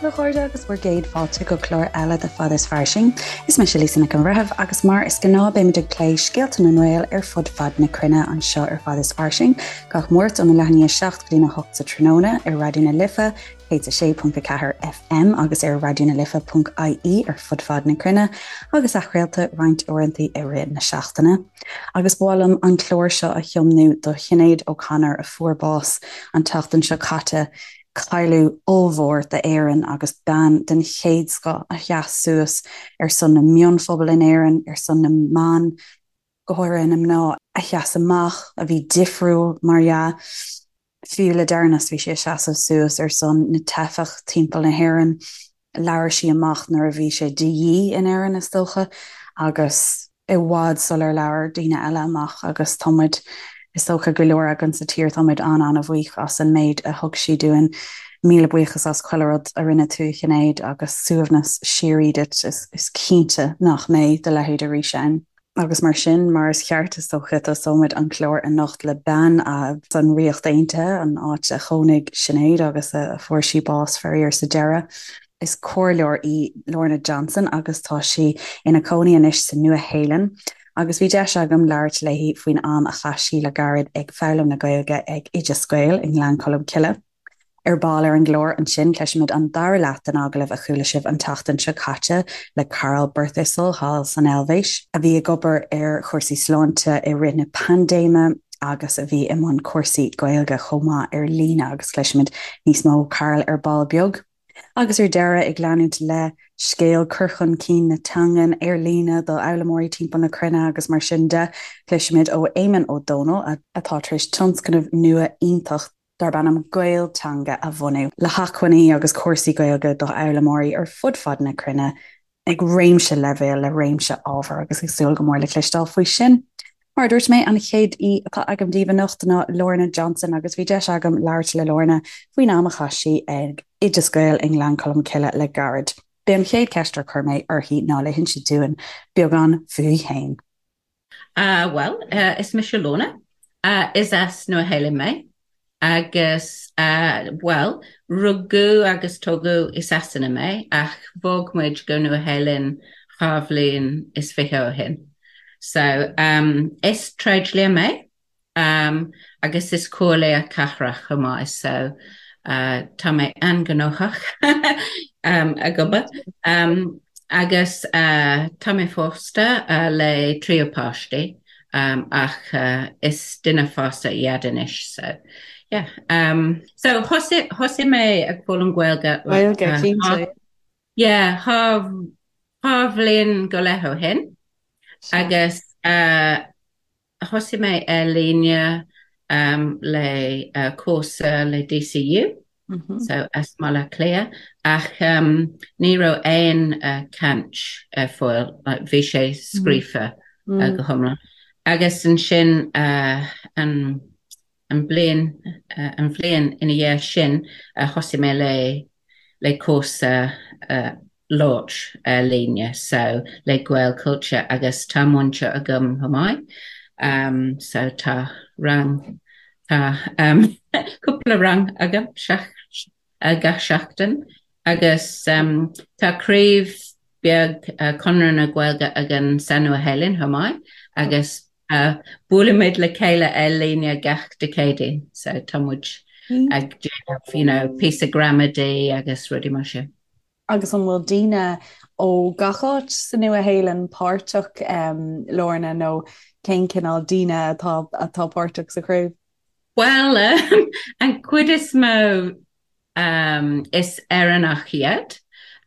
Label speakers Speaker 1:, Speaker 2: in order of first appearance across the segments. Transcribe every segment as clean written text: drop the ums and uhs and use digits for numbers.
Speaker 1: daoibh a chairde agus bhur gcéad fáilte go clár eile de Fad is Fairsing. Is mise Lisa Nic an Bhreithimh agus mar is gnáth beimid ag plé scéalta na nGael ar fud fad na cruinne anseo ar Fad is Fairsing gach Máirt óna leath i ndiaidh 7 go dtína 8 sa tráthnóna ar Raidió na Life 106.4 FM agus ar raidionalife.ie ar fud fad na cruinne agus athchraolta roinnt uaireanta i rith na seachtaine. Agus ba mhaith liom an clár seo a thiomnú do Shinéad O'Connor a fuair bás an tseachtain seo caite, cailleadh ollmhór d'Éirinn agus bean den chéad scoth a sheas suas ar son na mionphobal in Éirinn, ar son na mban, go háirithe na mná a sheas amach, a bhí difriúil, mar dhea. Fiú le deireanas bhí sí ag seasamh suas ar son na teifeach timpeall na hÉireann. Labhair sí amach nuair a bhí sé de dhíth in Éirinn, is dócha, agus i bhfad sular labhair daoine eile amach agus tá muid, is dócha, go leor againn sa tír, tá muid an-an-bhuíoch as an méid a thug sí dúinn. Míle buíochas as chuile rud a rinne tú, a Shinéad, agus suaimhneas síoraí duit. Is cinnte nach mbeidh do leithéid arís ann. Agus mar sin, mar is ceart, is dócha, tosóimid an clár anocht le bean as an Ríocht Aontaithe, an áit a chónaigh Sinéad agus a fuair sí bás, faraor, sa deireadh. Is comhairleoir í Lorna Johnson agus tá sí ina cónaí anois sa Nua-Shéalainn. Agus bhí deis agam labhairt léi faoin am a chaith sí le gairid ag foghlaim na Gaeilge ag Oideas Gael i nGleann Cholm Cille. Ar ball ar an gclár ansin, cloisfimid an dara leath den agallamh a chuala sibh an tseachtain seo caite le Carl Birthistle thall san Eilvéis, a bhí ag obair ar chúrsaí sláinte i rith na paindéime agus a bhí i mbun cúrsaí Gaeilge chomh maith ar líne agus cloisfimid níos mó ó Carl ar ball beag. Agus ar deireadh, ag leanúint le scéal cur chun cinn na teangan ar líne do fhoghlaimeoirí timpeall na cruinne agus mar sin de, cloisfimid ó Éamonn Ó Dónaill, atá tar éis tionscnamh nua iontach darb ainm Gaelteanga a bhunú, le hacmhainní agus cúrsaí Gaeilge do fhoghlaimeoirí ar fud fad na cruinne ag réimse leibhéal le réimse ábhar agus ag súil go mór le cloisteáil faoi sin. Mar a dúirt mé, an chéad aoi atá agam daoibh anocht ná Lorna Johnson agus bhí deis agam labhairt le Lorna faoin am a chaith sí ag Oideas Gael i nGleann Cholm Cille le gairid. B'é an chéad cheist ar chuir mé uirthi ná le hinse dúinn beagán fúithi féin.
Speaker 2: Bhuel, is mise Lorna. Is as Nua Shéalainn mé agus, bhuel, rugadh agus tógadh i Sasana mé ach bhog muid go Nua Shéalainn 22 bhliain ó shin. So, is tréidlia mé. Agus is comhairleoir cathrach chomh maith so tá mé an-ghnóthach ag obair. Agus tá mé pósta le triúr páistí ach is duine fásta iad anois so yeah. So thosaigh mé ag foghlaim Gaeilge
Speaker 1: Gaeilge, cinnte.
Speaker 2: Yeah, dhá bhliain go leith ó shin agus Thosaigh mé ar líne le cúrsa le DCU, so as Baile Átha Cliath, ach ní raibh aon caint ar fáil, like bhí sé scríofa go hiomlán. Agus ansin an An bliain an bhliain ina dhiaidh sin thosaigh mé le le cúrsa labhairt ar líne so le Gaelchultúr agus tá múinteoir agam chomh maith so tá rang tá cúpla rang agam gach seachtain agus tá craobh beag Conradh na Gaeilge againn sa Nua Shéalainn chomh maith agus buailimid le chéile ar líne gach Dé Céadaoin so tá muid ag déanamh you know píosa gramadaí agus rudaí mar sin.
Speaker 1: Agus an bhfuil daoine ó gach áit sa Nua Shéalainn páirteach, Lorna, nó cén cineál daoine atá atá páirteach sa chraobh?
Speaker 2: Bhuel, an chuid is mó is Éireannach iad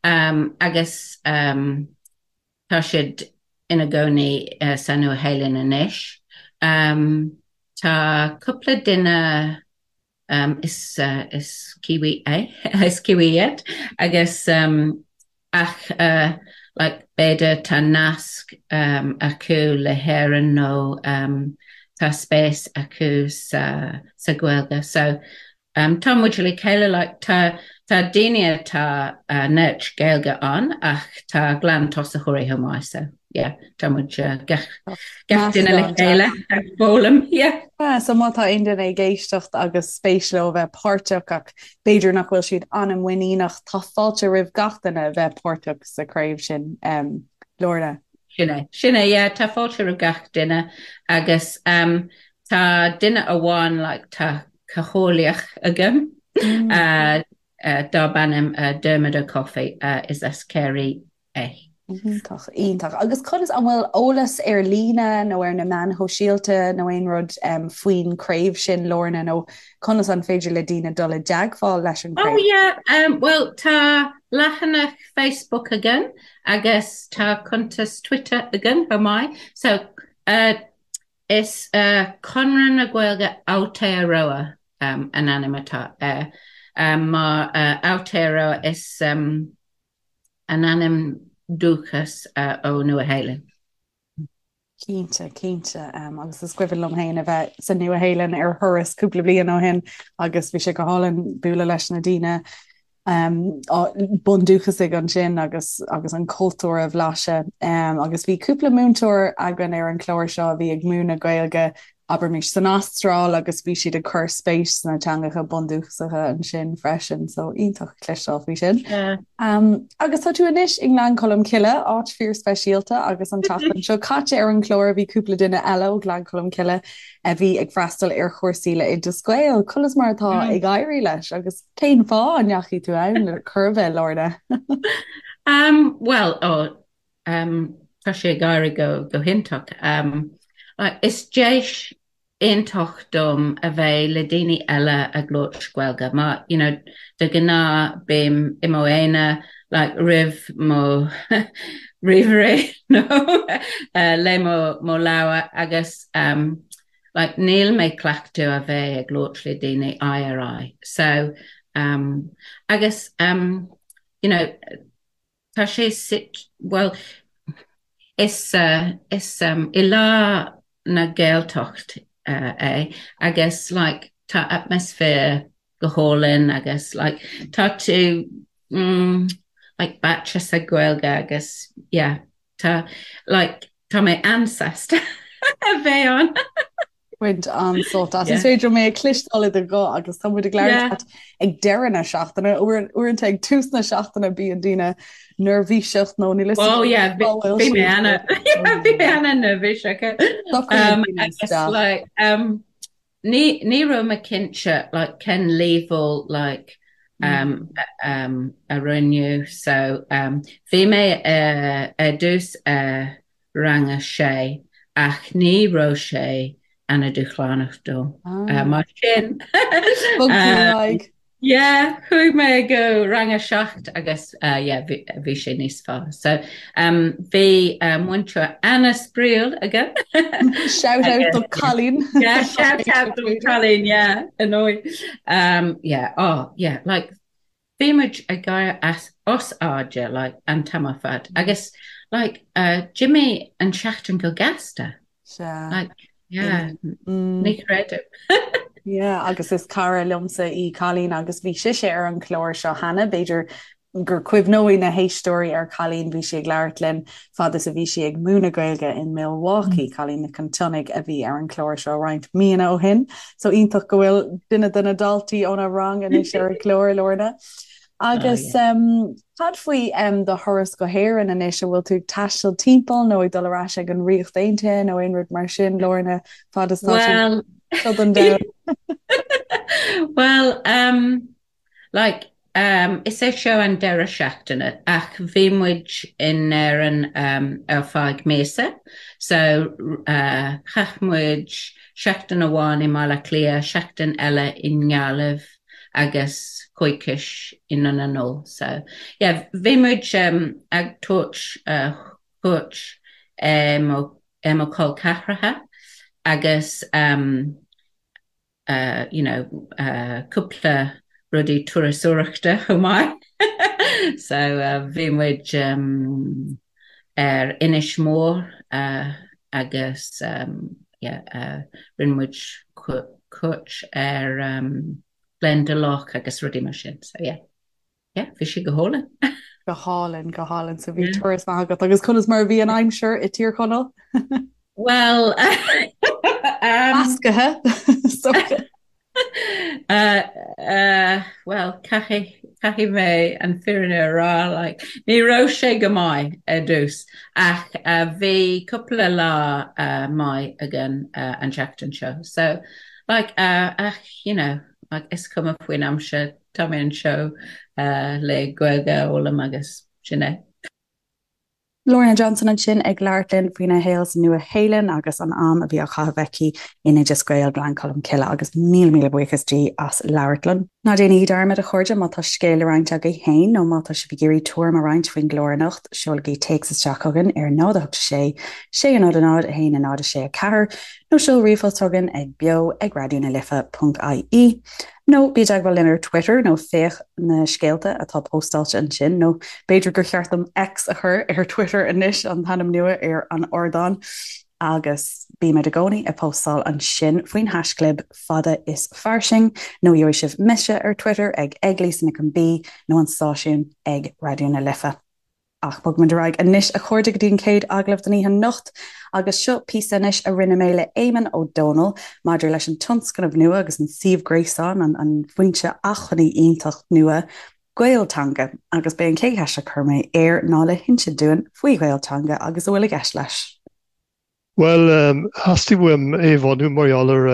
Speaker 2: agus tá siad ina gcónaí sa Nua Shéalainn anois. Tá cúpla duine is is Kiwi é, is Kiwi iad agus ach like b'fhéidir tá nasc acu le hÉirinn nó tá spéis acu sa sa Ghaeilge. So tá muid le chéile like tá. tá daoine atá neart Gaeilge ann ach tá glan-tosaitheoirí chomh maith so yeah tá muid gach gach duine le chéile ag foghlaim yeah.
Speaker 1: Yeah, so má tá aon duine ag éisteacht agus spéis leo a bheith páirteach ach b'fhéidir nach bhfuil siad an-mhuiníneach, tá fáilte roimh gach duine a bheith páirteach sa chraobh sin, um, Lorna.
Speaker 2: Sin é, sin é, yeah, tá fáilte roimh gach duine agus um, tá duine amháin like, tá cathaoirleach agam mm. uh, uh, darb ainm uh, Dermot Ó Cofaigh uh, is as Ciarraí é.
Speaker 1: Iontach, iontach. Agus conas, an bhfuil eolas ar líne nó ar na meáin shóisialta nó aon rud um, faoin craobh sin Lorna nó conas an féidir le daoine dul i dteagmháil leis an
Speaker 2: craobh? Oh yeah, um, well tá leathanach Facebook againn agus tá cuntas Twitter againn chomh maith. So uh, is uh, Conradh na Gaeilge Aotearoa um, an ainm atá air. Um, mar uh, Aotearoa is um, an ainm dúchas uh, ó Nua-Shéalainn.
Speaker 1: Cinnte, cinnte. Um, agus is cuimhin liom féin a bheith sa Nua-Shéalainn ar thuras cúpla bliain ó shin agus bhí sé go hálainn bualadh leis na daoine um, bundúchasaigh ansin agus agus an cultúr a bhlaiseadh. Um, agus bhí cúpla múinteoir againn ar an chlár seo a bhí ag múineadh Gaeilge abraimis san Astráil agus bhí siad ag cur spéis sna teangacha bundúchasacha ansin freisin, so iontach cloisteáil faoi sin. Yeah. Um, agus tá tú anois i nGleann Cholm Cille, áit fíorspeisialta agus an tseachtain seo caite ar an chlár bhí cúpla duine eile ó Ghleann Cholm Cille a bhí ag freastal ar chúrsaí le Oideas Gael. Conas mar atá mm. ag éirí leis agus cén fáth a ndeachaigh tú ann le cur bheith Lorna?
Speaker 2: um, well, oh, Um, tá sé ag éirí go, go hiontach. Um, is deis iontach dom a bheith le daoine eile ag labhairt Gaeilge. Mar, you know, de ghnáth bím i mo aonar like, roimh mo ríomhaire nó uh, le mo, mo leabhar agus um, like, níl mé cleachtadh a bheith ag labhairt le daoine aghaidh ar aghaidh. So, um, agus, um, you know, Tá sé suite, bhuel, is is i lár na Gaeltacht é agus like tá atmaisféar go hálainn agus like tá tú mm like báite sa Ghaeilge agus yeah tá like tá mé an-sásta a bheith ann.
Speaker 1: Baint an-sult as. Is féidir mé a chloisteáil i do ghuth agus tá muid ag labhairt leat ag deireadh na seachtaine, uaireanta ag tús na seachtaine bíonn daoine neirbhíseach nó níl
Speaker 2: fhios Oh yeah, bhí mé ana bhí mé ana neirbhíseach. Agus like um ní ní raibh mé cinnte like cén leibhéal like um um a rinneadh so um bhí mé uh, ar dtús uh, rang a sé ach ní raibh sé ana dúshlánach dom. Mar sin
Speaker 1: Bhog tú ar aghaidh.
Speaker 2: Yeah, chuaigh mé go rang a 7 agus yeah, bhí sé níos fearr. So um, bhí uh, múinteoir ana-spraíúil agam.
Speaker 1: Shout out do Colleen.
Speaker 2: Yeah, shout out do Colleen, yeah, annoy. Um, yeah, oh, yeah, like Bhí muid ag gáire as os airde like an t-am ar fad agus like d'imigh an seachtain go gasta.
Speaker 1: Sea.
Speaker 2: Like yeah, ní chreidim.
Speaker 1: Yeah, agus is cara liomsa í Colleen agus bhí sise ar an chlár seo cheana, b'fhéidir gur cuimhneoidh na héisteoirí ar Colleen, bhí sí ag labhairt linn fad is a bhí sí ag múineadh Gaeilge in Milwaukee, Colleen Nic an tSionnaigh a bhí ar an chlár seo roinnt míonna ó shin. So iontach go bhfuil duine de na daltaí óna rang anois ar an gclár, Lorna. Agus um, cad faoi um, do thuras go hÉirinn anois, an bhfuil tú ag taisteal timpeall nó ag dul ar ais ag an Ríocht Aontaithe nó aon rud mar sin, Lorna, fad is tá
Speaker 2: tú
Speaker 1: seo don domhan?
Speaker 2: Well, um, Like, um, is é seo an deireadh seachtaine ach bhí muid in Éirinn um, ar feadh míosa so uh, chaith muid seachtain amháin i mBaile Átha Cliath, seachtain eile i nGaillimh agus coicís i nDún na nGall. So yeah, bhí muid um, ag tabhairt uh, cuairt ar mo, ar mo chol ceathracha agus um, you know, cúpla rudaí turasóireachta chomh maith. So bhí muid ar Inis Mór agus yeah, rinne muid cuairt ar Glendalough agus rudaí mar sin. So yeah. Yeah, bhí sé go hálainn.
Speaker 1: Go hálainn, go hálainn. So bhí turas maith agat agus conas mar a bhí an aimsir i Tír Chonaill?
Speaker 2: Well,
Speaker 1: Meascaithe.
Speaker 2: Well, caithfidh, caithfidh mé an fírinne a rá, like, ní raibh sé go maith ar dtús ach bhí cúpla lá maith againn an tseachtain seo. So, like, ach, you know, like, is cuma faoin aimsir, Tá mé anseo le Gaeilge a fhoghlaim agus sin é.
Speaker 1: Lorna Johnson ansin ag labhairt linn faoina shaol sa Nua-Shéalainn agus an am a bhí á chaitheamh aici in Oideas Gael Gleann Cholm Cille agus míle míle buíochas di as labhairt linn. Ná déanaigí dearmad, a chairde, má tá scéal le roinnt agaibh féin nó má tá sibh ag iarraidh tuairim a roinnt faoin gclár anocht, seolaigí téacs isteach chugainn ar 0 8 6 6 0 0 1 0 6 4 nó seol ríomhphost chugainn ag beo ag raidió na life ponc ie. Nó bí i dteagmháil linn ar Twitter nó féach na scéalta atá póstáilte ansin, nó b'fhéidir gur cheart dom X a chur ar Twitter anois, an t-ainm nua ar an ardán, agus bímid i gcónaí ag póstáil ansin faoin haischlib fada is fairsing, nó gheobhaidh sibh mise ar Twitter ag ag Lisa Nic an B nó an stáisiún ag Raidió na Life. Ach bogfaimid ar aghaidh anois, a chairde, go dtí an chéad agallamh don oíche anocht. Agus seo píosa anois a rinne mé le Éamonn Ó Dónaill maidir leis an tionscnamh nua agus an suíomh gréasáin, an foinse acmhainní iontach nua, Gaelteanga. Agus b'é an chéad cheist a chuir mé air ná le hinse dúinn faoi Ghaelteanga agus a bhfuil i gceist leis.
Speaker 3: Bhuel, theastaigh uaim é a bhunú mar gheall ar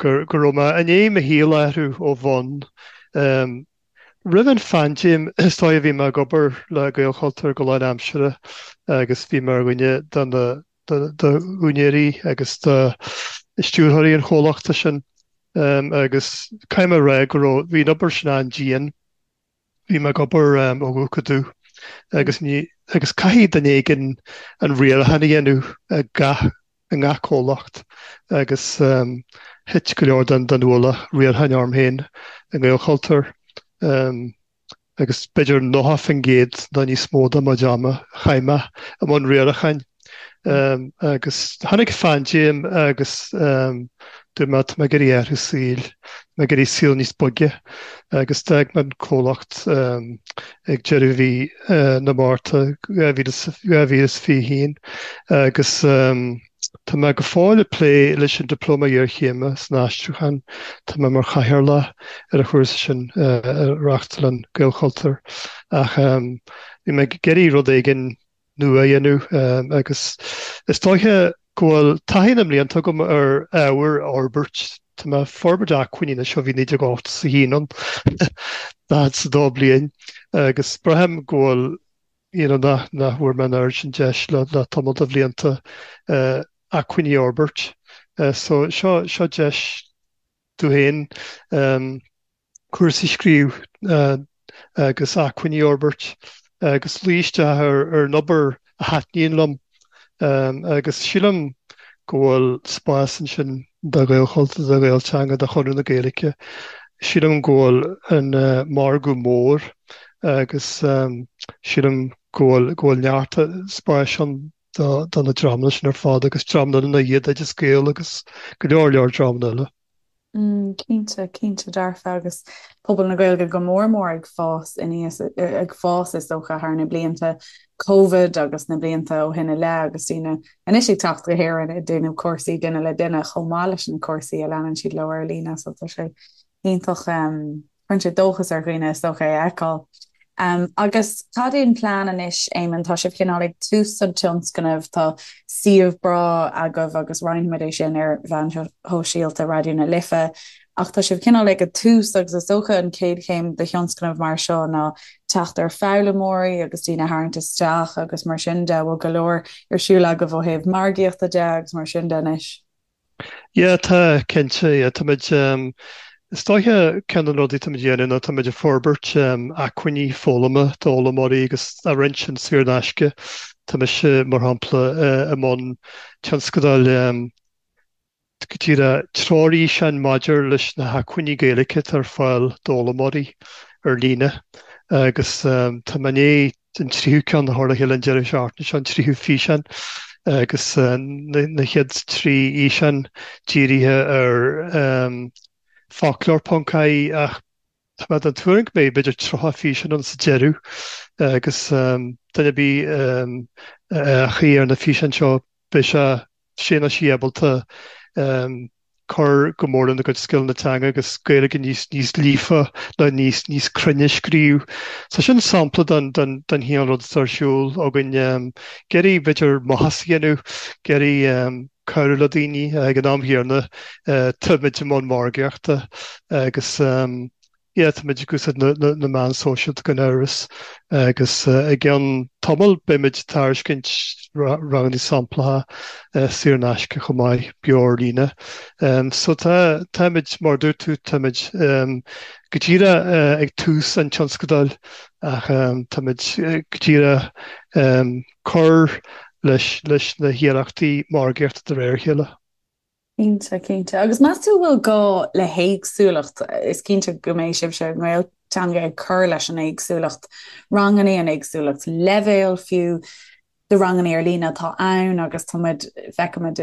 Speaker 3: go raibh mé i ndiaidh mo shaol a athrú ó bhonn. Roimh an phaindéim, is dóigh, bhí mé ag obair le Gaelchultúr go lánaimseartha agus bhí mé ar dhuine de na d'úinéirí agus de stiúrthóirí an chomhlachta sin agus caithfidh mé a rá go raibh, bhí an obair sin an-dian. Bhí mé ag obair ó dhubh go dubh agus ní, agus caithfidh duine éigin an riarachán a dhéanamh i gach, i ngach comhlacht agus thit go leor den, den ualach riaracháin orm féin i nGaelchultúr agus b'fhéidir 90% nó níos mó de mo chuid ama a chaith mé i mbun riaracháin. Agus tháinig paindéim agus dúirt mé tá mé ag iarraidh athrú saoil, tá mé ag iarraidh saol níos boige agus d'fhág mé an comhlacht ag deireadh mhí na Márta 2021 agus tá mé go fóill ag plé leis an Dioplóma Iarchéime san Aistriúchán, tá mé mar chathaoirleach ar an chúrsa sin a reáchtálann Gaelchultúr ach bhí mé ag iarraidh rud éigin nua a dhéanamh agus is dóiche go bhfuil taithí na mblianta agam ar ábhar a fhorbairt. Tá mé ag forbairt acmhainní anois ó bhí 1981 ann, 42 bliain, agus braithim go bhfuil you know nach nach bhfuair mé an oiread sin deis le le tamall de bhlianta acmhainní a fhorbairt. So seo seo deis domh féin. cúrsaí a scríobh agus acmhainní a fhorbairt agus luí isteach ar an obair a thaitníonn liom agus sílim go bhfuil spás ansin do Ghaelchultúr, do Ghaelteanga, do Chonradh na Gaeilge. Sílim go bhfuil an margadh mór agus sílim go bhfuil go bhfuil neart spáis ann do na dreamanna sin ar fad agus dreamanna eile ina dhiaidh, Oideas Gael agus go leor leor dreamanna eile.
Speaker 1: Cinnte, cinnte dearfa agus pobal na Gaeilge go mór mór ag fás aníos, ag fás is dócha thar na blianta Covid agus na blianta ó shin i leith agus daoine anois ag teacht go hÉirinn ag déanamh cúrsaí duine le duine chomh maith leis na cúrsaí a leanann siad leo ar líne so tá sé iontach. Cuireann sé dóchas ar dhaoine is dócha é a fheiceáil. Agus cad é an plean anois, Éamonn? Tá sibh cineál ag tús an tionscnaimh, tá suíomh breá agaibh agus roinnfimid é sin ar mheáin shóisialta Raidió na Life, ach tá sibh cineál ag an tús agus is dócha an chéad chéim de thionscnamh mar seo ná teacht ar foghlaimeoirí agus daoine a tharraingt isteach agus mar sin de. Bhfuil go leor ar siúl agaibh ó thaobh margaíochta de agus mar sin de anois?
Speaker 3: Yeah, tá, cinnte, yeah, táimid, is dóiche ceann de na rudaí táimid a dhéanamh ná táimid ag forbairt acmhainní foghlama d'fhoghlaimeoirí agus á roinnt sin saor in aisce. Tá mise, mar shampla, i mbun tionscadail go díreach treoirfhíseáin maidir leis na hacmhainní Gaeilge atá ar fáil d'fhoghlaimeoirí ar líne agus tá mé i ndiaidh an tríú ceann a chur le chéile an deireadh seachtaine seo, an tríú físeán agus na chéad 3 fhíseán dírithe ar foclóir.ie ach. Tá mé den tuairim go mbeidh b'fhéidir 30 físeán ann sa deireadh agus duine ar bith a fhéachfaidh ar na físeáin seo beidh sé, sé nó sí ábalta cur go mór lena gcuid scileanna teanga agus Gaeilge níos níos líofa nó níos níos cruinne a scríobh. So sin sampla den den den chineál rud atá ar siúl againn. Ag iarraidh b'fhéidir maitheas a dhéanamh, ag iarraidh cabhrú le daoine ag an am chéanna táimid i mbun margaíochta agus yeah táimid ag úsáid na meán sóisialta gan amhras agus i gceann tamaill beimid ag tairiscint ranganna samplacha saor in aisce chomh maith beo ar líne. So tá táimid mar a dúirt tú táimid go díreach ag tús an tionscadail ach táimid go díreach cur leis leis na hiarrachtaí margaíochta de réir a chéile.
Speaker 1: Cinnte, cinnte. Agus meas tú an bhfuil gá le héagsúlacht? Is cinnte go mbeidh sibhse i nGaelteanga ag cur leis an éagsúlacht ranganna, an éagsúlacht leibhéal fiú de ranganna ar líne atá ann agus tá muid, feicimid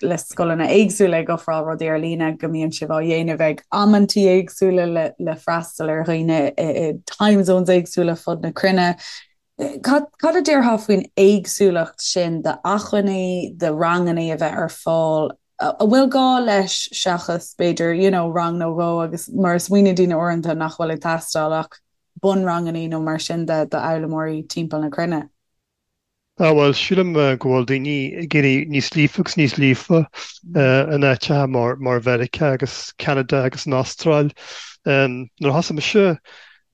Speaker 1: le scoileanna éagsúla ag ofráil rudaí ar líne go mbíonn sibh á dhéanamh ag amantaí éagsúla le le freastal ar dhaoine i time zones éagsúla fud na cruinne. Cad a déarfá faoin éagsúlacht sin d'acmhainní, de ranganna a bheith ar fáil, a bhfuil gá leis seachas, b'fhéidir, you know, rang nó dhó agus mar a smaoiníonn daoine uaireanta nach bhfuil ag teastáil ach bunranganna nó mar sin de d'fhoghlaimeoirí timpeall na cruinne?
Speaker 3: Ah bhuel, sílim go bhfuil daoine ag éirí níos líofa agus níos líofa in áiteacha mar Mheiriceá agus Ceanada agus an Astráil. Nuair a thosaigh mise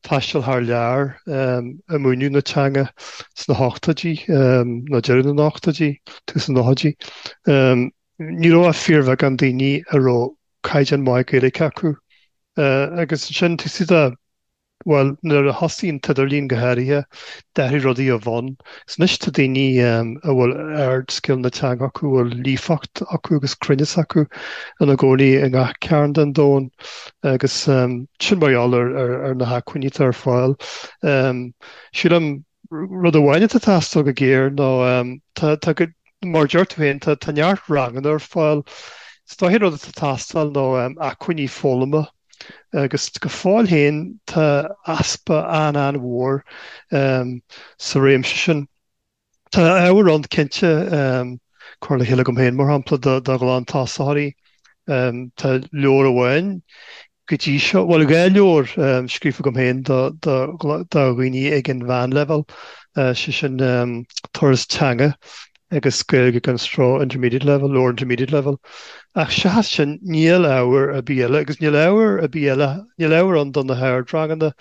Speaker 3: taisteal thar lear ag múineadh na teanga sna hochtóidí, nó deireadh na n-ochtóidí, tús na nóchaidí, ní raibh ach fíorbheagán daoine a raibh caighdeán maith Gaeilge acu. Agus ansin, tosaigh de Bhuel, nuair a thosaigh an t-idirlíon go háirithe, d'athraigh rudaí ó bhonn. Is anois tá daoine a bhfuil ardscileanna teanga acu, a bhfuil líofacht acu agus cruinneas acu ina gcónaí i ngach cearn den domhan agus sin mar gheall ar na hacmhainní atá ar fáil. Sílim rud amháin atá ag teastáil go géar ná tá, tá go, mar a deir tú féin, tá, tá neart ranganna ar fáil. Is dóiche an rud atá ag teastáil ná acmhainní foghlama agus go fóill féin tá easpa an-an-mhór sa réimse sin. Tá ábhar ann cinnte, curtha le chéile agam féin mar shampla do ghlantosaitheoirí. Tá leabhar amháin go dtí seo, bhuel 2 leabhar scríofa agam féin do dhaoine ag an mheánleibhéal, sé sin Turas Teanga agus Gaeilge gan Stró Intermediate Level, Lower Intermediate Level. Ach seachas sin níl ábhar ar bith eile agus níl ábhar ar bith eile, níl ábhar ann do na hardranganna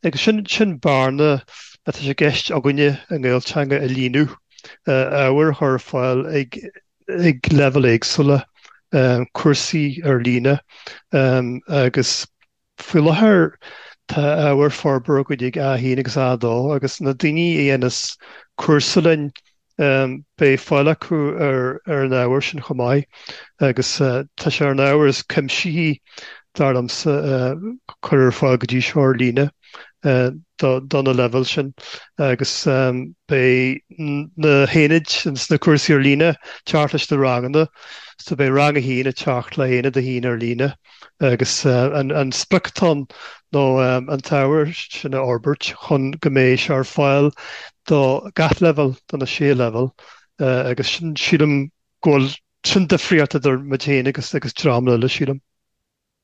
Speaker 3: agus sin, sin bearna atá sé i gceist againne i nGaelteanga a líonadh, ábhar a chur ar fáil ag, ag leibhéil éagsúla, cúrsaí ar líne agus Faoi láthair tá ábhar forbartha againn ag A1 agus A2 agus na daoine a dhéanas cúrsa linn beidh fáil acu ar an ábhar sin chomh maith agus tá sé ar an ábhar is cuimsithí dar liomsa a cuireadh ar fáil go dtí seo ar líne do na leibhéil sin agus beidh na haonaid sna cúrsaí ar líne ag teacht leis na ranganna so beidh rang 1 ag teacht le haonad 1 ar líne. Agus an sprioc atá ann ná an t-ábhar sin a fhorbairt chun go mbeidh sé ar fáil do gach leibhéal, do na sé leibhéal, agus sin, sílim go bhfuil, sin difríocht idir muid féin agus agus dreamanna eile, sílim.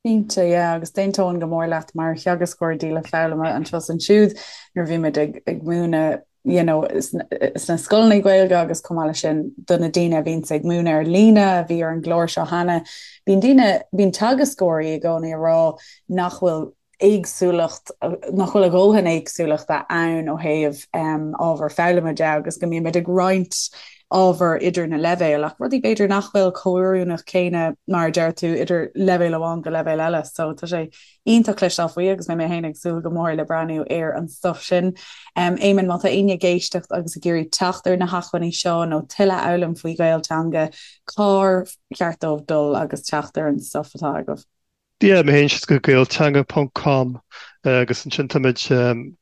Speaker 1: Cinnte, yeah, agus d'aontóinn go mór leat mar theagascóir díola foghlama anseo is ansiúd nuair a bhí muid ag ag múineadh you know, sna scoileanna Gaeilge agus chomh maith leis sin do na daoine a bhíonns ag múineadh ar líne a bhí ar an gclár seo cheana, bíonn daoine, bíonn teagascóirí i gcónaí ag rá nach bhfuil éagsúlacht, nach bhfuil a dhóthain éagsúlachta ann ó thaobh ábhar foghlama de agus go mbíonn muid ag roinnt ábhar idir na leibhéil ach rudaí b'fhéidir nach bhfuil chomh oiriúnach céanna mar a deir tú idir leibhéal amháin go leibhéal eile so tá sé Iontach cloisteáil faoi agus beidh mé féin ag súil go mór le breathnú ar an stuif sin. Éamonn, má tá éinne ag éisteacht agus ag iarraidh teacht ar na hacmhainní seo nó tuilleadh a fhoghlaim faoi Ghaelteanga, cár cheart dóibh dul agus teacht ar an stuif atá agaibh?
Speaker 3: Yeah, má théann siad go gaelteanga ponc com. Agus ansin táimid,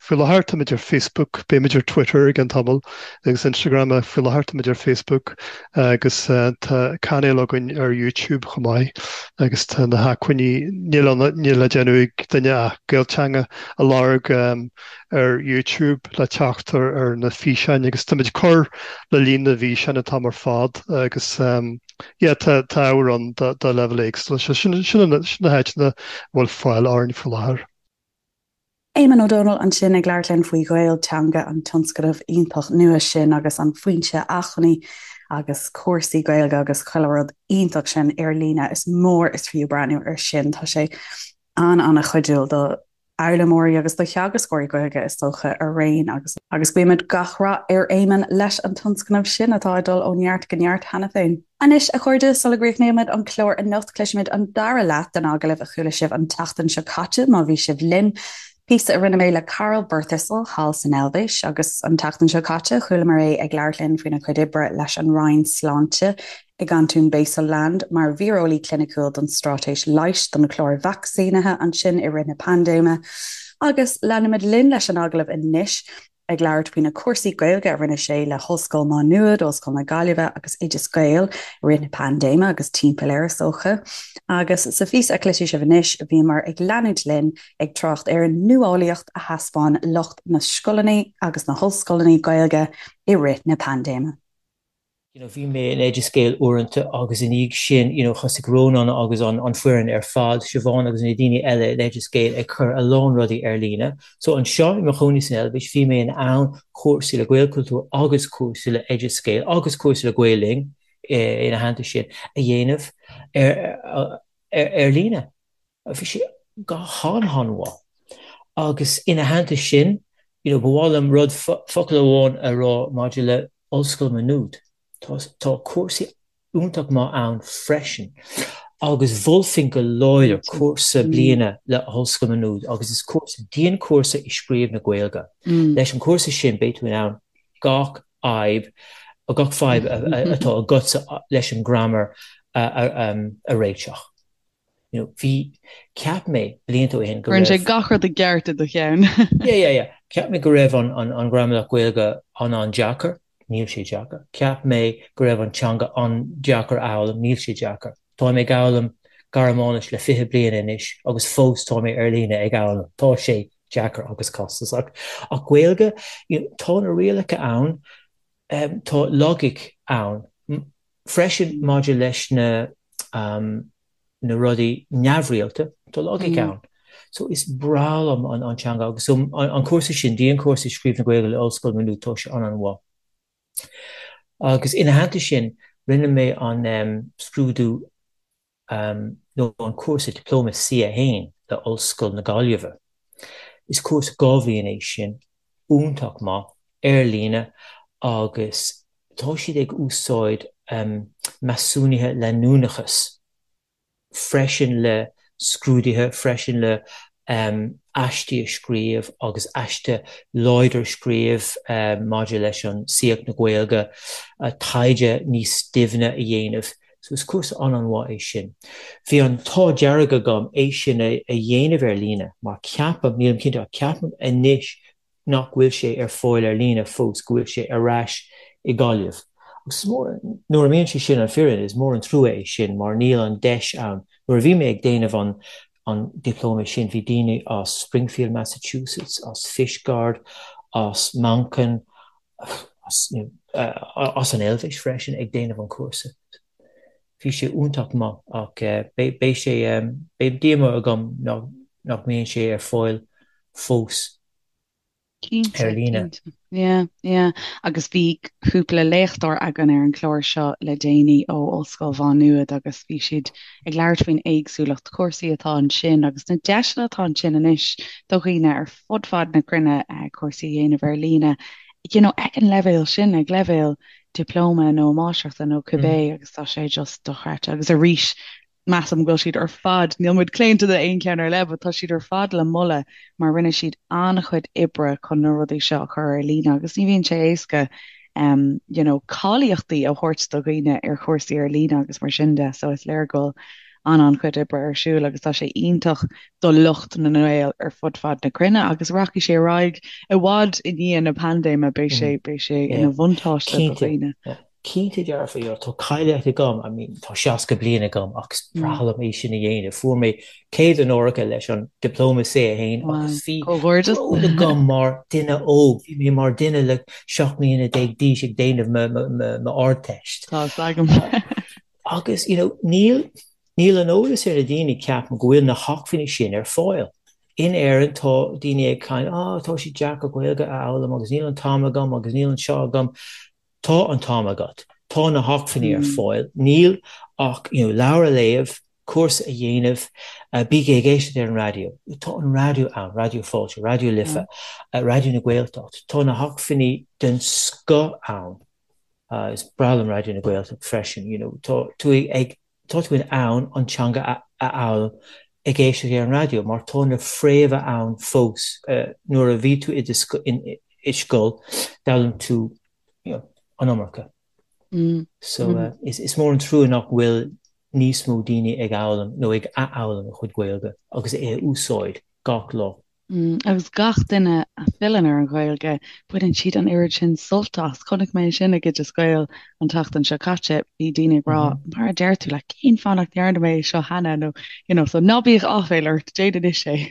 Speaker 3: faoi láthair táimid ar Facebook, beimid ar Twitter i gceann tamaill agus Instagram ach faoi láthair táimid ar Facebook agus tá cainéal againn ar YouTube chomh maith agus tá na hacmhainní, níl ann, níl le déanamh ag duine ach Gaelteanga a lorg ar YouTube le teacht ar na físeáin agus táimid ag cur le líon na bhfíseán atá ar fad agus yeah tá ábhar ann do leibhéil éagsúla. Sin sin na háiteanna a bhfuil fáil orainn faoi láthair.
Speaker 1: Éamonn Ó Dónaill ansin ag labhairt linn faoi Ghaelteanga, an tionscnamh iontach nua sin agus an foinse acmhainní agus cúrsaí Gaeilge agus chuile rud iontach sin ar líne. Is mór is fiú breathnú air sin. Tá sé an-an-chuidiúil do fhoghlaimeoirí agus do theagascóirí Gaeilge, is dócha, araon agus agus guímid gach rath ar Éamonn leis an tionscnamh sin atá ag dul ó neart go neart cheana féin. Anois, a chairde, sula gcríochnaímid an clár anocht, cloisfimid an dara leath den agallamh a chuala sibh an tseachtain seo caite, má bhí sibh linn. Píosa a rinne mé le Karl Birthistle thall san Eilvéis, agus an tseachtain seo caite, chualamar é ag labhairt linn faoina chuid oibre leis an Roinn Sláinte i gcantún Basel-Land mar víreolaí cliniciúil don straitéis leighis don chlár vacsaínithe ansin i rith na paindéime. Agus leanfaimid linn leis an agallamh anois, ag labhairt faoi na cúrsaí Gaeilge a rinne sé le hOllscoil Má Nuad, Ollscoil na Gaillimhe agus Oideas Gael i rith na paindéime agus timpeall air, is dócha. Agus sa phíosa a chloisfidh sibh anois, bhíomar ag leanúint linn ag trácht ar an nuálaíocht a thaispeáin lucht na scoileanna agus na hollscoileanna Gaeilge i rith na paindéime.
Speaker 4: You know, bhí mé in Oideas Gael uaireanta agus ina dhiaidh sin, you know, thosaigh Rónán agus an, an foireann ar fad, Siobhán agus na daoine eile in Oideas Gael ag cur a lán rudaí ar líne. So anseo i mo chónaí san Eilvéis, bhí mé in ann cúrsaí le Gaelchultúr agus cúrsaí le Oideas Gael agus cúrsaí le Gael Linn ina theannta sin a dhéanamh ar, ar, ar líne. Bhí sé go han-han-mhaith. Agus ina theannta sin, you know, ba mhaith liom rud, focal amháin a rá maidir le Ollscoil Maigh Nuad. Tá, tá cúrsaí iontach maith ann freisin. Agus mholfainn go láidir cúrsa bliana le hOllscoil Maigh Nuad agus is cúrsa, dianchúrsa i scríobh na Gaeilge. Leis an chúrsa sin beidh tú in ann gach fhadhb, gach fadhb atá agatsa leis an grammar a réiteach. You know, bhí, cheap mé blianta ó shin
Speaker 5: go raibh. Cuireann sé gach rud i gceart i do cheann.
Speaker 4: Yeah, yeah, yeah. Cheap mé go raibh an, an, an ghramadach Gaeilge an-an-deacair. Níl sé deacair. Cheap mé go raibh an teanga an-deacair a fhoghlaim. Níl sé deacair. Táim ag foghlaim Gearmáinis le 20 bliain anois agus fós tá mé ar líne ag foghlaim. Tá sé deacair agus costasach. Ach Gaeilge, you know, tá na rialacha ann, um, tá logic ann. Freisin maidir leis na na rudaí neamhrialta, tá logic ann. So is breá liom an an teanga agus so an cúrsa sin, dianchúrsa scríobh na Gaeilge le Ollscoil Maigh Nuad, tá sé an-an-mhaith. Agus ina theannta sin, rinne mé an scrúdú nó an cúrsa Dioplóma C1 le Ollscoil na Gaillimhe. Is cúrsa 2 bhliain é sin, iontach maith, ar líne agus tá siad ag úsáid measúnuithe leanúnachais freisin le scrúduithe, freisin le aistí a scríobh agus aiste láidir a scríobh maidir leis an saíocht na Gaeilge, taighde níos doimhne a dhéanamh. So is cúrsa an-an-mhaith é sin. Bhí an t-ádh dearg agam é sin a dhéanamh ar líne mar ceapaim, nílim cinnte ach ceapaim anois nach bhfuil sé ar fáil ar líne fós, go bhfuil sé ar ais i Gaillimh. Agus is mór, nuair a mbíonn sé sin an fírinne, is mór an trua é sin mar níl an deis ann. Nuair a bhí mé ag déanamh an an dioplóma sin bhí daoine as Springfield, Massachusetts, as Fishguard, as Manchain, as, you know, as an Eilvéis freisin ag déanamh an chúrsa. Bhí sé iontach maith ach beidh sé, beidh díomá agam nach mbíonn sé ar fáil fós ar líne.
Speaker 5: Cinnte, yeah, yeah. Agus bhí cúpla léachtóir againn ar an chlár seo le déanaí ó Ollscoil Mhá Nuad agus bhí siad ag labhairt faoin éagsúlacht cúrsaí atá ansin agus na deiseanna atá ansin anois do dhaoine ar fud fad na cruinne cúrsaí a dhéanamh ar líne, you know, ag an leibhéal sin, ag leibhéal dioplóma nó máistreachta nó cibé agus tá sé just dochreidte. Agus arís, measaim go bhfuil siad ar fad, níl muid claonta d'aon cheann ar leith, but tá siad ar fad le moladh mar rinne siad an-chuid oibre chun na rudaí seo a chur ar líne agus ní bhíonn sé éasca um, you know, cáilíochtaí a thabhairt do dhaoine ar chúrsaí ar líne agus mar sin de, so is léir go bhfuil. an-an-chuid oibre ar siúl agus tá sé iontach do lucht na nGael ar fud fad na cruinne agus rachaidh sé ar aghaidh i bhfad i ndiaidh na paindéime, beidh sé, beidh sé ina bhuntáiste do dhaoine.
Speaker 4: Cinnte dearfa, you know, tá cáilíocht agam, I mean, tá 60 bliain agam ach is breá liom é sin a dhéanamh. Fuair mé céad onóracha leis an Dioplóma C1 agus bhí bród agam mar duine óg, bhí mé mar duine le 17 mbliana d'aois ag déanamh m'Ardteist.
Speaker 5: Tá fhios agam.
Speaker 4: Agus, you know, níl, níl an eolas ar na daoine, ceapaim, go bhfuil na hacmhainní sin ar fáil. In Éirinn tá daoine ag caint, ah, tá sé deacair Gaeilge a fhoghlaim agus níl an t-am agam agus níl an seo agam. Tá an t-am agat. Tá na hacmhainní ar fáil. Níl ach you know leabhar a léamh, cúrsa a dhéanamh, bígí ag éisteacht ar an raidió. Tá an raidió ann, Raidió Fáilte, Raidió Life, Raidió na Gaeltacht. Tá na hacmhainní den scoth ann. Is breá liom Raidió na Gaeltacht freisin. You know, tá tú ag tá tú in ann an teanga a fhoghlaim ag éisteacht ar an raidió mar tá na fréamha ann fós. Nuair a bhí tú i do i scoil, d'fhoghlaim tú you know, an iomarca. So is is mór an trua nach bhfuil níos mó daoine ag fhoghlaim nó ag athfhoghlaim a chuid Gaeilge agus é a úsáid gach lá.
Speaker 5: Agus gach duine a fhilleann ar an Ghaeilge, baineann siad an oiread sin sult as. Chonaic mé sin ag Oideas Gael an tseachtain seo caite, bhí daoine ag rá, mar a deir tú, like, cén fáth nach ndearna mé é seo cheana nó, you know, so ná bíodh áiféal ort, déan anois
Speaker 4: é.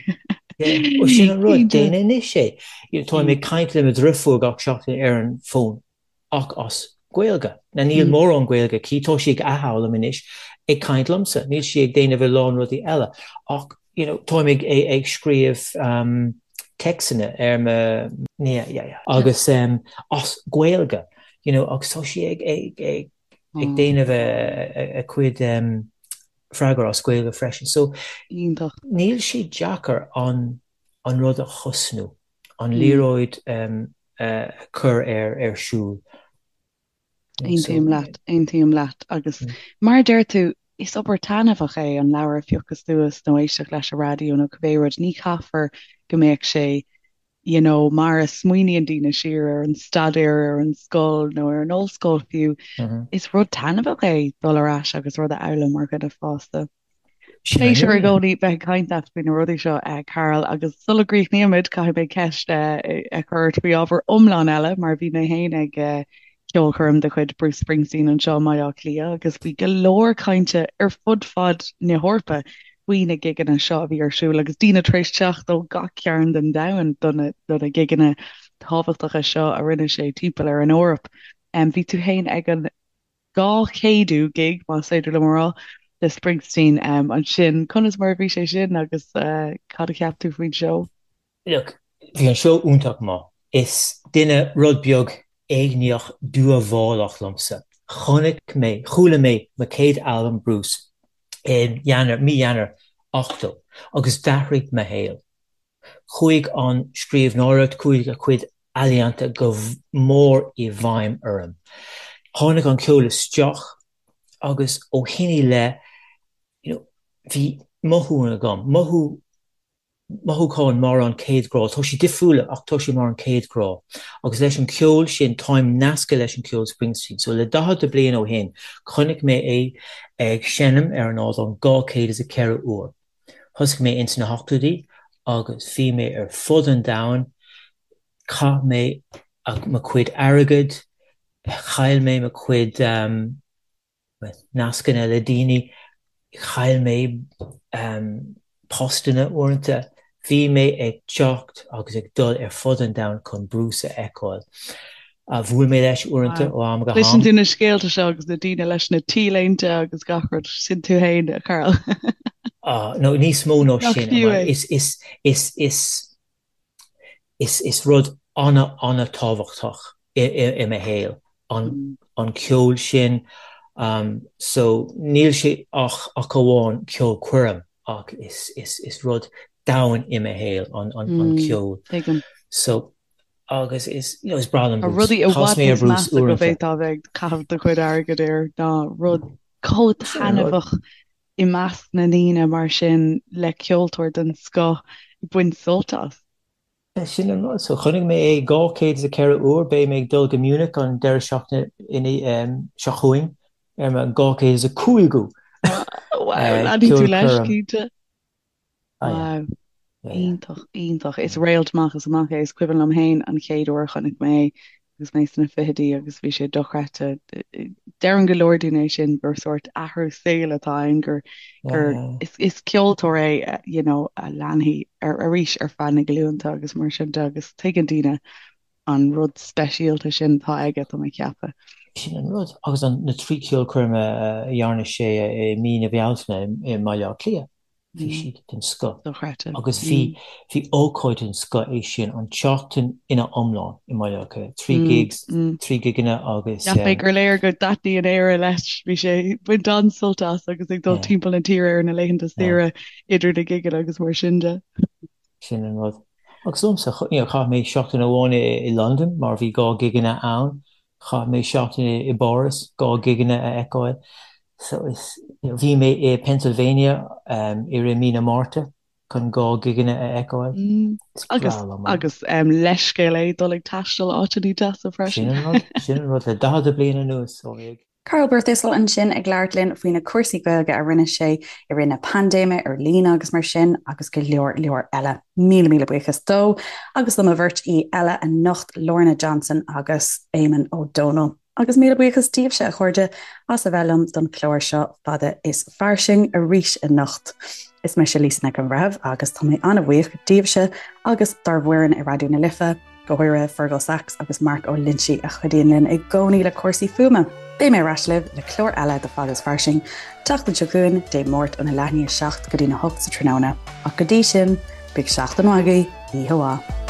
Speaker 4: Yeah, sin an rud, déan anois é. You know, táim ag caint le mo dhriofúr gach seachtain ar an bhfón. ach as Gaeilge. Now níl mórán Gaeilge aici, tá sí ag athfhoghlaim anois, ag caint liomsa, níl sí ag déanamh a lán rudaí eile ach you know táim ag ag scríobh téacsanna ar mo yeah yeah yeah agus as Gaeilge you know agus tá sí ag ag ag ag déanamh a cuid freagra as Gaeilge freisin. So
Speaker 5: Iontach.
Speaker 4: níl sé deacair an an rud a thosnú, an liathróid a chur ar ar siúl.
Speaker 5: Aontaím leat, aontaím leat. Agus mar a deir tú, is obair taitneamhach é an leabhar a phiocadh suas nó éisteacht leis an raidió nó cibé rud. Ní chaithfear go mbeadh sé you know, mar a smaoiníonn daoine siar ar an staidéar ar an scoil nó ar an ollscoil fiú. Is rud taitneamhach é dul ar ais agus rud a fhoghlaim mar dhuine fásta. Pléisiúr i gcónaí bheith ag caint leat faoi na rudaí seo, Karl, agus sula gcríochnaímid, caithfidh mé ceist a chur ort faoi ábhar iomlán eile, mar bhí mé féin ag ceolchoirm de chuid Bruce Springsteen anseo i mBaile Átha Cliath agus bhí go leor cainte ar fud fad na hEorpa faoi na gigeanna seo a bhí ar siúl agus daoine tar éis teacht ó gach cearn den domhan do na do na gigeanna tábhachtacha seo a rinne sé timpeall ar an Eoraip. Bhí tú féin ag an 200ú gig, más féidir liom a rá, de Springsteen ansin. Conas mar a bhí sé sin agus cad a cheap tú faoin seó?
Speaker 4: Look, bhí an seó iontach maith. Is duine rud beag éigníoch dúmhálach liomsa. Chonaic mé, chuala mé mo chéad albam Bruce i Eanáir, mí Eanáir 80 agus d'athraigh mo shaol. Chuaigh an scríbhneoireacht, chuaigh a chuid ealaíonta go mór i bhfeidhm orm. Tháinig an ceol isteach agus ó shin i leith, you know, bhí mothú agam, mothú, mothúchán mar an chéad ghrá. Tá sé difriúil ach tá sé mar an chéad ghrá. Agus leis an cheol sin, táim nasctha leis an cheol Springsteen. So le 40 bliain ó shin, chonaic mé é ag seinm ar an ardán 204 uair. Thosaigh mé ins na hochtóidí agus bhí mé ar fud an domhain, chaith mé mo chuid airgid, chaill mé mo chuid nascanna le daoine, chaill mé postanna uaireanta. Bhí mé ag teacht agus ag dul ar fud an domhain chun Bruce a fheiceáil. Bhuail mé leis uaireanta ó am go ham.
Speaker 5: Cloiseann tú na scéalta seo agus na daoine leis na T-léinte agus gach rud, sin tú fhéin, a Karl.
Speaker 4: No, níos mó ná sin. Is, is, is, is, is, is rud ana-ana-tábhachtach i mo shaol an, an ceol sin. So níl sé ach, ach amháin ceolchoirm ach is, is, is rud domhain i mo shaol an, an, an ceol.
Speaker 5: Tuigim.
Speaker 4: So Agus is, you know, is breá liom
Speaker 5: Tá
Speaker 4: Bruce.
Speaker 5: rudaí i
Speaker 4: Chas
Speaker 5: bhfad
Speaker 4: mé ar
Speaker 5: níos
Speaker 4: Bruce
Speaker 5: measa go
Speaker 4: uaireanta.
Speaker 5: bhféadfá a bheith ag caitheamh do chuid airgid air ná rud chomh
Speaker 4: Sin an rud.
Speaker 5: taitneamhach i measc na ndaoine mar sin le ceoltóir den scoth ag baint sult as.
Speaker 4: Sin an rud. So chonaic mé é 204 uair. Beidh mé ag dul go Munich an deireadh seachtaine seo chugainn ar mo 205ú.
Speaker 5: Wow, leanfaidh tú leis, cinnte. Wow. Iontach, iontach. Is réalt amach is amach é. Is cuimhin liom féin an chéad uair a chonaic mé é agus mé sna fichidí agus bhí sé dochreidte. Deireann go leor daoine é sin gur sórt athrú saoil atá ann, gur gur is is ceoltóir é you know a leanfaidh ar arís ar feadh na glúnta agus mar sin de agus tuigeann daoine an rud speisialta sin atá aige, tá mé ag ceapadh.
Speaker 4: Sin an rud. Agus an na trí ceolchoirm a dhearna sé i mí na Bealtaine i mBaile Átha Cliath. Bhí siad den scoth.
Speaker 5: Dochreidte.
Speaker 4: Agus bhí, bhí ócáid den scoth é sin, an tseachtain ina iomlán i mBaile Átha Cliath. 3 gigs, 3 gigeanna agus.
Speaker 5: Cheap mé gur léir go dtaitníonn Éire leis. Bhí sé ag baint an-sult as agus ag dul timpeall na tíre ar na laethanta saoire idir na gigeanna agus mar sin de.
Speaker 4: Sin an rud. Agus liomsa, you know, chaith mé seachtain amháin i Londain mar bhí 2 gigeanna ann. Chaith mé seachtain i bPáras, 2 gigeanna a fheiceáil. So is, you know, bhí mé i Pennsylvania i rith mí na Márta chun 2 gigeanna a fheiceáil.
Speaker 5: Is breá liom é. Agus leithscéal é dul ag taisteal áiteanna deasa
Speaker 4: freisin. Sin an rud, sin an rud le 40 bliain anuas ó mé ag.
Speaker 1: Karl Birthistle ansin ag labhairt linn faoi na cúrsaí Gaeilge a rinne sé i rith na paindéime ar líne agus mar sin agus go leor leor eile. Míle míle buíochas dó agus do mo bheirt aoi eile anocht, Lorna Johnson agus Éamonn Ó Dónaill. Agus míle buíochas daoibhse, a chairde, as a bheith liom don chlár seo Fada is Fairsing arís anocht. Is mise Lisa Nic an Bhreithimh agus tá mé an-bhuíoch díobhse agus dár bhfoireann i Raidió na Life, go háirithe Fergal Sachs agus Mark Ó Loinsigh a chuidíonn linn i gcónaí le cúrsaí fuaime. Beidh mé ar ais libh le clár eile de Fada is Fairsing, tseachtain seo chugainn, Dé Máirt óna leath i ndiaidh 7 go dtína 8 sa tráthnóna. Ach go dtí sin, bíodh seachtain mhaith agaibh, oíche mhaith.